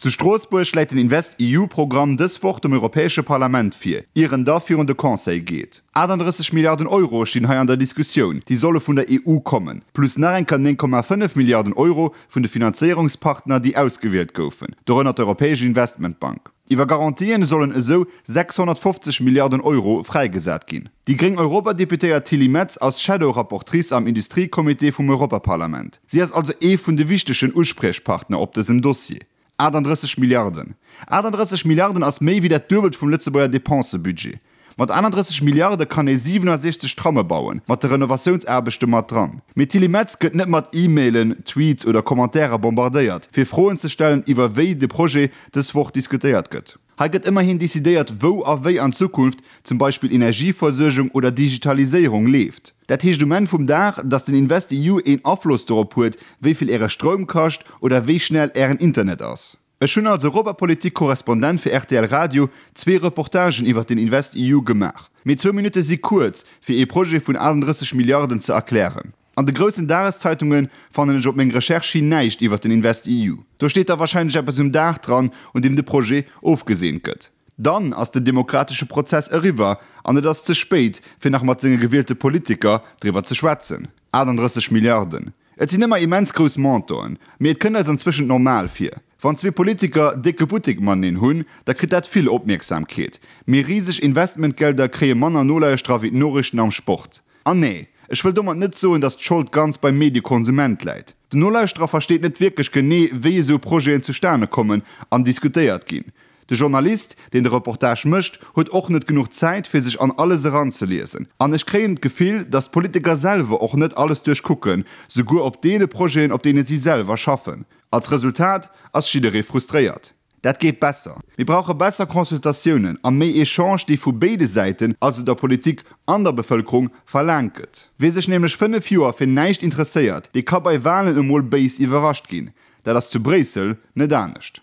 Zu Stroossbuerg läit den InvestEU-Programm dës Woch dem Europäesche Parlament vir, ier en da virun de Conseil geet. 38 Milliarden Euro stinn hei an der Diskussioun, déi solle vun der EU kommen, plus nach eng Kéier 9,5 Milliarden Euro vun de Finanzéierungspartner, déi ausgewielt goufen, dorënner d'Europäesch Investmentbank. Iwwer Garantien sollen esou 650 Milliarden Euro fräigesat ginn. Déi gréng Europadeputéiert Tilly Metz ass Shadow-Rapportrice am Industriecomité vum Europaparlament. Si ass also ee vun de wichtegen Uspriechpartner op dësem Dossier. 38 Milliarden. 38 Milliarden ass méi wéi dat Duebelt vum Lëtzebuerger Depensebudget. Mat 31 Milliarde kann ee 67 Tramme bauen, mat de Renovatiounsaarbechte mat dran. Mee d'Tilly Metz gëtt net mat E-Mailen, Tweets oder Commentairen bombardéiert, fir Froen ze stellen iwwer wéi de Projet dës Woch diskutéiert gëtt. Hei gëtt ëmmerhin decidéiert, wou a wéi an Zukunft zum Beispill Energieversuergung oder Digitaliséierung leeft. Dat heescht um Enn vum Dag, datt den InvestEU een Afloss dorop huet, wéi vill Äre Stroum kascht oder wéi schnell Ären Internet ass. Ech hunn als Europapolitik-Korrespondent fir rtl Radio zwee Reportagen iwwer den InvestEU gemaach. Mee zwou Minutte si kuerz, fir ee Projet vun 38 Milliarden ze erklären. An de groussen Dageszeitunge fannen ech op meng Recherche hin näischt iwwer den InvestEU. Do steet da warscheinlech eppes um Dag dran, un deem de Projet ofgeseent gëtt. Dann ass den demokratesche Prozess eriwwer an et ass ze spéit, fir nach mat senge gewielte Politiker driwwer ze schwätzen. 38 Milliarden, et sinn ëmmer immens grouss Montanten, mee et kënnt eis anzwëschent normal vir. Wann zwee Politiker décke Buttek mateneen hunn, da kritt dat vill Opmierksamkeet. Mee riseg Investmentgelder kréie manner Nolauschterer wéi d'Noriichten am Sport. An nee, ech wëll domat net soen, datt d'Schold ganz beim Mediekonsument läit. Den Nolauschterer versteet net wierklech genee, wéi esou Projeten zustane kommen an diskutéiert ginn. De Journalist, deen de Reportage mécht, huet och net genuch Zäit, fir sech an alles eranzeliesen. An ech kréien d'Gefill, datt d'Politiker selwer och net alles duerchkucken, souguer op deene Projeten, op deene si selwer schaffen. Als Resultat ass jidderee frustréiert. Dat geet besser. Mir brauche besser Consultatiounen a méi Echange, déi vu béide Säiten, also der Politik an der Bevëlkerung, verlaangt gëtt. Wie sech nämlech 5 Joer fir näischt interesséiert, dee ka bei Walen emol béis iwwerrascht ginn. Dat ass zu Bréissel net anescht.